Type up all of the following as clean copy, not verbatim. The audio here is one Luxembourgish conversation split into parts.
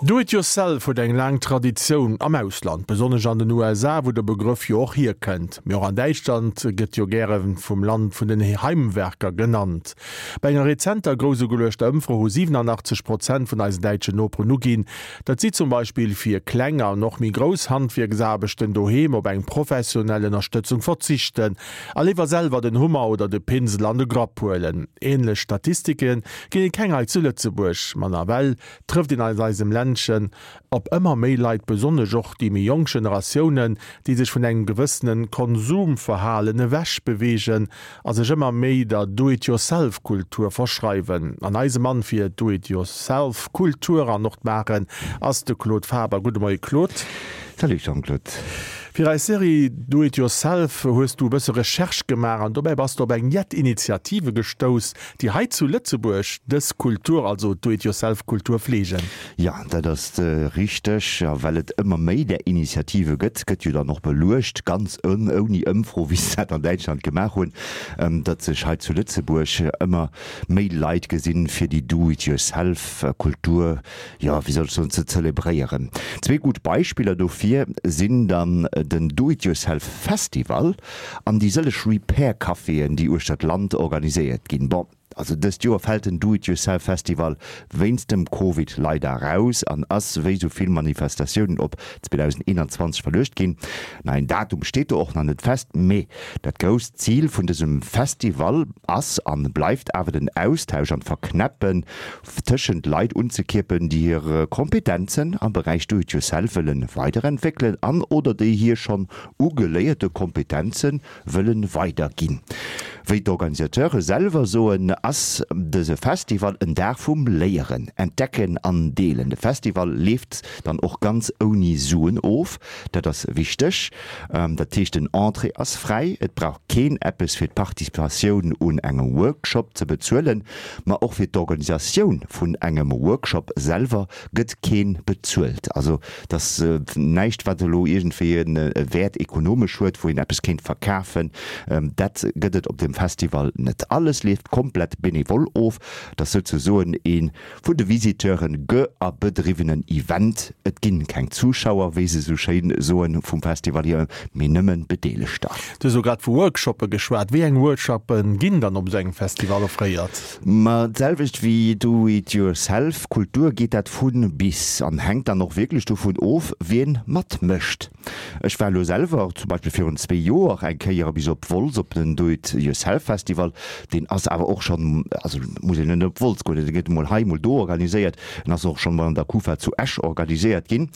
Do it yourself huet eng laang Traditioun am Ausland, besonnesch an den USA, wou de Begrëff jo och hierkënnt. Mee och an Däitschland gëtt jo gäre vum Land vun den Heimwerker genannt. Bei enger rezenter grouss ugeluechter Ëmfro hu 87 Prozent vun eisen däitschen Noperen uginn, datt si zum Beispill fir kleng an och méi grouss Handwierksaarbechten doheem op eng professionell Ënnerstëtzung verzichten a léiwer selwer den Hummer oder de Pinsel an de Grapp huelen. Änlech Statistike ginn et keng hei zu Lëtzebuerg, ma nawell trëfft een an eisem Ländchen op ëmmer méi Leit, besonnesch och déi méi jonk Generatiounen, déi sech vun engem gewëssene Konsumverhalen ewech beweegen a sech ëmmer méi der Do-it-yourself-Kultur verschreiwen. An eise Mann fir d'Do-it-yourself-Kultur an och d'Maachen ass de Claude Faber. Gudde Moie Claude. Salut Jean-Claude. Fir eis Serie Do it yourself hues du e bësse Recherche gemaach an dobäi bass de op eng jett Initiative gestouss, déi hei zu Lëtzebuerg dës Kultur, also d'Do-it-yourself-Kultur fleegen. Jo, dat ass richteg. A well et ëmmer méi där Initiative gëtt, gëtt jo dann och beluecht, ganz ouni Ëmfro, wéi se dat an Däitschland gemaach hunn, datt sech hei zu Lëtzebuerg ëmmer méi Leit gesinn, fir déi Do-it-yourself-Kultur, jo, wéi soll ech soen, ze zelebréieren. Zwee gutt Beispiller dofir sinn dann den Do-it-yourself-Festival An déi sëlleg Repair Caféen, déi uechter d'Land organiséiert ginn. Bon, also dëst Joer fält den Do It Yourself Festival wéinst dem Covid leider raus an ass, wéi sou vill Manifestatiounen, op 2021 verluecht ginn. Neien Datum steet do och nach net fest, mee dat grousst Zil vun dësem Festival ass an bleift awer den Austausch an d'Verknäppen tëschent Leit unzekierpen, déi hir Kompetenzen am Beräich Do It Yourself wëllen weiderentwéckelen an oder déi hir schonn ugeléierte Kompetenze wëllen weiderginn. Wéi d'Organisateure selwer soen, ass dëse Festival en Dag vum Léieren, Entdecken an Deelen. De Festival leeft dann och ganz ouni Suen of, dat ass wichteg. Dat heescht den Entrée ass fräi, et brauch keen eppes fir d'Participatioun un engem Workshop ze bezuelen, ma och fir d'Organisatioun vun engem Workshop selwer gëtt keen bezuelt. Also et ass näischt wat elo iergendwéi e Wäert ekonomesch huet, wou een eppes kéint verkafen. Dat gëtt et op deem Festival net. Alles leeft komplett benevol of. Et ass souzesoen ee vun de Visiteuren ge a bedriwwenen Event. Et ginn keng Zuschauer, wéi se esou schéin soen vum Festival hier, mee nëmmen Bedeelegter. Du hues elo grad vu Workshoppe geschwat. Wéi eng Workshoppe ginn dann op esou engem Festival offréiert? Ma d'selwecht wéi Do it yourself Kultur geet dat vun bis an hänkt dann och wierklech dovun of, wien matmécht. Ech war elo selwer zum Beispill virun zwee Joer eng Kéier bis op Wolz op den Do it yourself Festival. Deen ass awer och schonn, also muss een net op Wolz goen, dee gëtt emol hei, emol do organiséiert. En ass och schonn emol an der Kufa zu Esch organiséiert ginn.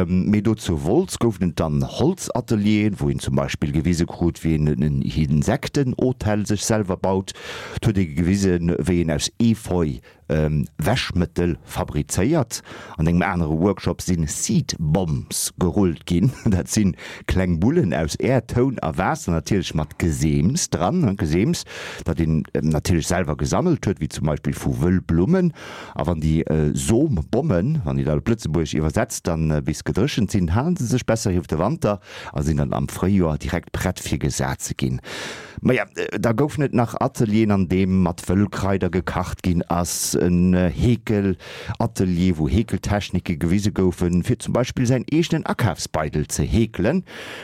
Mee do zu Wolz goufen et dann Holzatelieren, wou een zum Beispill gewise krut, wéi een en Insektenhotel sech selwer baut. Et huet ee gewisen, wéi een aus Efeu Wäschmëttel fabrizéiert. An engem anere Workshop si Seed Bombs gerullt ginn. Dat si kleng Bullen aus Äerd, Toun a Waasser, natierlech mat Geseems dran. Geseems, dat een natierlech selwer gesammelt huet, wéi zum Beispill vu Wëllblummen. A wann déi Sombommen, wann een dat op Lëtzebuergesch iwwersetzt, dann bis gedréchent sinn, halen se sech besser iwwer de Wanter a sinn dann am Fréijoer direkt prett fir gesat ze ginn. Maja, da goufen et nach Atelieren, an deem mat Wëllkraider gekacht ginn ass, en Heekelatelier, wou Heekeltechnike gewise goufen, fir zum Beispill säin eegenen Akafsbeidel ze heekelen,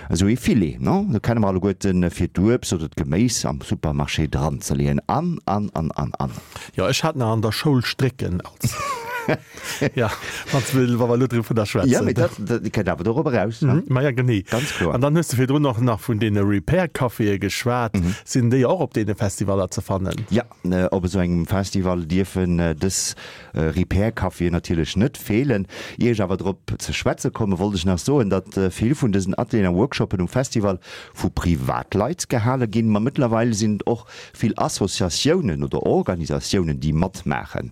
esou ee Filet, non? Do kenne mer alleguerten, fir d'Uebst oder d'Geméis am Supermarché dranzeleeën an, an, an, an, an. Jo, ech hat nach an der Schoul Strécken als. Ja, wann s wa mer elo dovunner schwätzen. Ja, mee dat, dat kënnt awer dorop eraus, ne? Ma ja, genee. Ganz kloer. An dann hues de virdrun och nach vun deene Repair-Caféë geschwat. Sinn déi och op deene Festivaller ze fannen? Ja, op esou engem Festival dierfen dës Repair-Caféen natierlech net feelen. Ier ech awer drop ze schwätze kommen, wollt ech nach soen, datt vill vun dësen Atelieren a Workshoppen um Festival vu Privatleit gehale ginn. Ma mëttlerweil sinn et och vill Associatiounen oder Organisatiounen, déi matmaachen.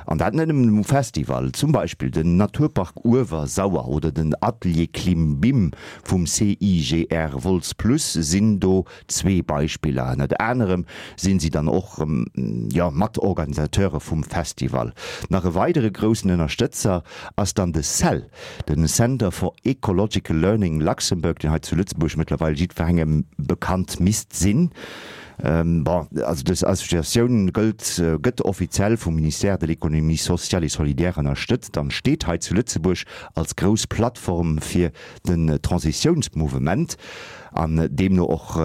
An dat net nëmmen um Festival. Zum Beispill den Naturpark Uewersauer oder den Atelier Klimbim vum CIGR Wolz Plus sinn do zwee Beispiller. Ënnert anerem sinn si dann och, jo, Matorganisateure vum Festival. Nach e weidere groussen Ënnerstëtzer ass dann de cell, den Center for Ecological Learning Luxembourg, deen hei zu Lëtzebuerg mëttlerweil jiddwerengem bekannt misst sinn. Bon, also dës Associatioun gëllt, gëtt offiziell vum Ministère de l'Économie sociale et solidaire ënnerstëtzt an steet hei zu Lëtzebuerg als grouss Plattform fir den Transitiounsmouvement an deemno och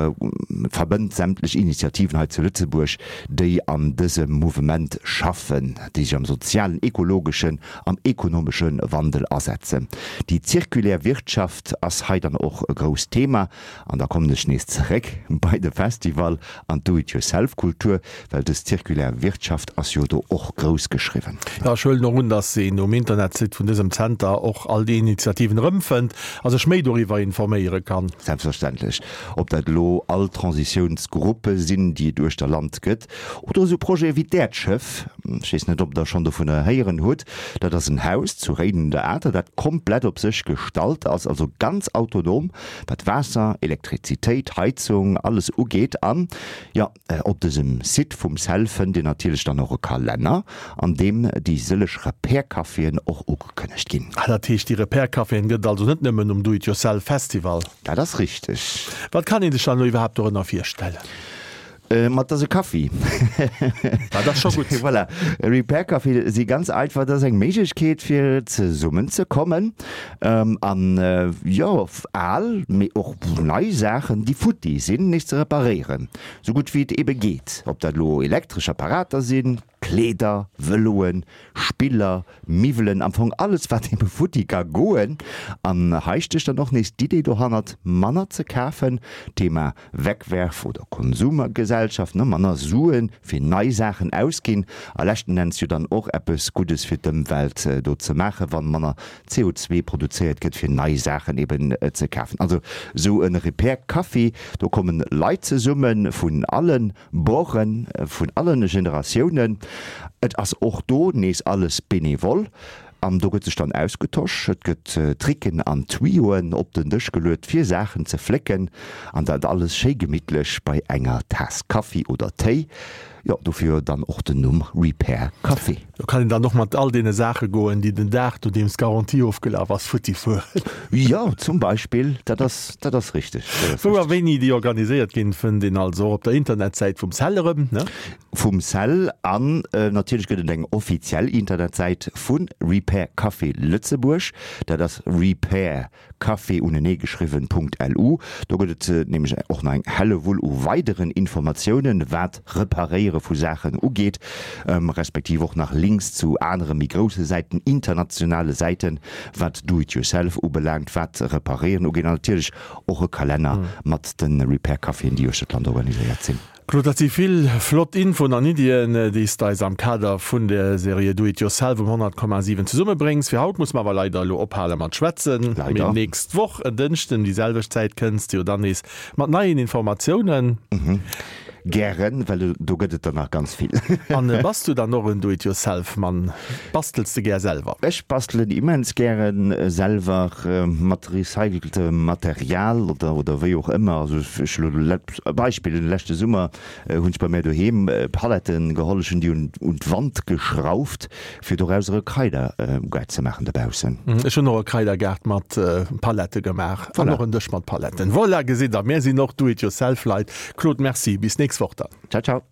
verbënnt sämtlech Initiativen hei zu Lëtzebuerg, déi an dësem Mouvement schaffen, déi sech am sozialen, ekologeschen an ekonomesche Wandel asetzen. Déi zirkulär Wirtschaft ass hei dann och e grousst Thema. An da kommen ech nees zeréck bei de Festival an d'Do-it-yourself-Kultur, well dës zirkulär Wirtschaft ass jo do och grouss geschriwwen. Jo, ech huelen och un, dass een um Internetsite vun dësem Zenter och all déi Initiativen erëmfënnt a sech méi doriwwer informéiere kann. Selbstverständlech. Ob dat elo all Transitiounsgruppe sinn, déi et uechter Land gëtt, oder esou Projete wéi d'Äerdschëff, ech weess net, ob Der schonn dovunner héieren hutt, dat ass en Haus zu Réiden un der Atert, dat komplett op sech gestallt ass, also ganz autonom, wat Waasser, Elektrizitéit, Heizung, alles ugeet. An jo, op dësem Site vum CEL fënnt Dir natierlech dann och e Kalenner, an deem déi sëlleg Repair-Caféen och ugekënnegt ginn. Ah, dat heescht, déi Repair-Caféen gëtt et also net nëmmen um Do-it-yourself-Festival? Dat ass richteg. Wat kann ee sech dann elo iwwerhaapt dorënner virstellen? Ma et ass e Kaffi. Dat ass scho gutt. Voilà, e Repair Café si ganz einfach, dat ass eng Méiglechkeet fir zesummen ze kommen an jo al, mee och nei Saachen déi futti sinn, nees ze reparéieren, sou gutt wéi et ebe geet. Ob dat elo elektresch Apparater sinn, Kleeder, Vëloen, Spiller, Miwwelen, am Fong alles wat ebe futti ka goen. An hei stécht dann och nees d'Idee dohannert, manner ze kafen, Thema Wegwerf oder Konsumergesellschaft, ne, manner Suen fir nei Saachen ausginn a leschten Enns jo dann och eppes Guddes fir d'Ëmwelt do ze maachen, wann manner CO2 produzéiert gëtt fir nei Saachen eben ze kafen. Also sou e Repair Café, do kommen Leit zesummen vun allen Borden, vun allen Generatiounen. Et ass och do nees alles bénévol. An do gëtt sech dann ausgetosch, et gëtt Tricken an Tuyauxen op den Dësch geluet fir Saachen ze flécken an dat alles schéi gemittlech bei enger Taass Kaffi oder Téi. Jo, dofir dann och den Numm Repair Café. Do kann een dann och mat all deene Saache goen, déi den Dag nodeems d'Garantie ofgelaf ass, futti fueren. Jo, zum Beispill, dat ass, dat ass richteg. Wou a wéini déi organiséiert ginn, fënnt een also och op der Internetsäit vum CEL erëm, ne? Vum CEL an natierlech gëtt et eng offiziell Internetsäit vu Repair Café Lëtzebuerg. Dat ass repaircafé uneneegeschriwwen Punkt lu. Do gëtt et nämlech och nach eng Hellewull u weideren Informatiounen, wat Reparéiere vu Saachen ugeet, respektiv och nach Links zu anere méi grousse Säiten, internationale Säiten, wat Do it yourself ubelaangt, wat Reparéieren ugeet an natierlech och e Kalenner mat de Repair Caféen, déi uechter d'Land organiséiert sinn. Claude, dat si vill flott Infoen an Iddien, déi s de eis am Kader vun der Serie Do It Yourself um 100,7 zesummebréngs. Fir haut musse mer awer leider elo ophale mat schwätzen. Leider. Mee nächst Woch en Dënschden déi selwecht Zäit kënns de jo dann nees mat neien Informatiounen. Gären, well do gëtt et der nach ganz vill. An bass du dann och en Do-it-yourself-Mann? Bastels de gär selwer? Ech bastelen immens gären selwer mat recyceltem Material oder oder wéi och ëmmer. Also ech elo e Beispill, den leschte Summer hunn ech bei mär doheem Paletten geholl, ech hunn déi un un d'Wand geschrauft fir dorauser e Kraidergaart ze maachen dobaussen. Ech hunn och e Kraidergaart mat Palette gemaach an och en Dësch mat Paletten. Voilà, gesitt der, mär sinn och Do-it-yourself-Leit. Claude, Merci, bis nächst Woch dann. Ciao, ciao.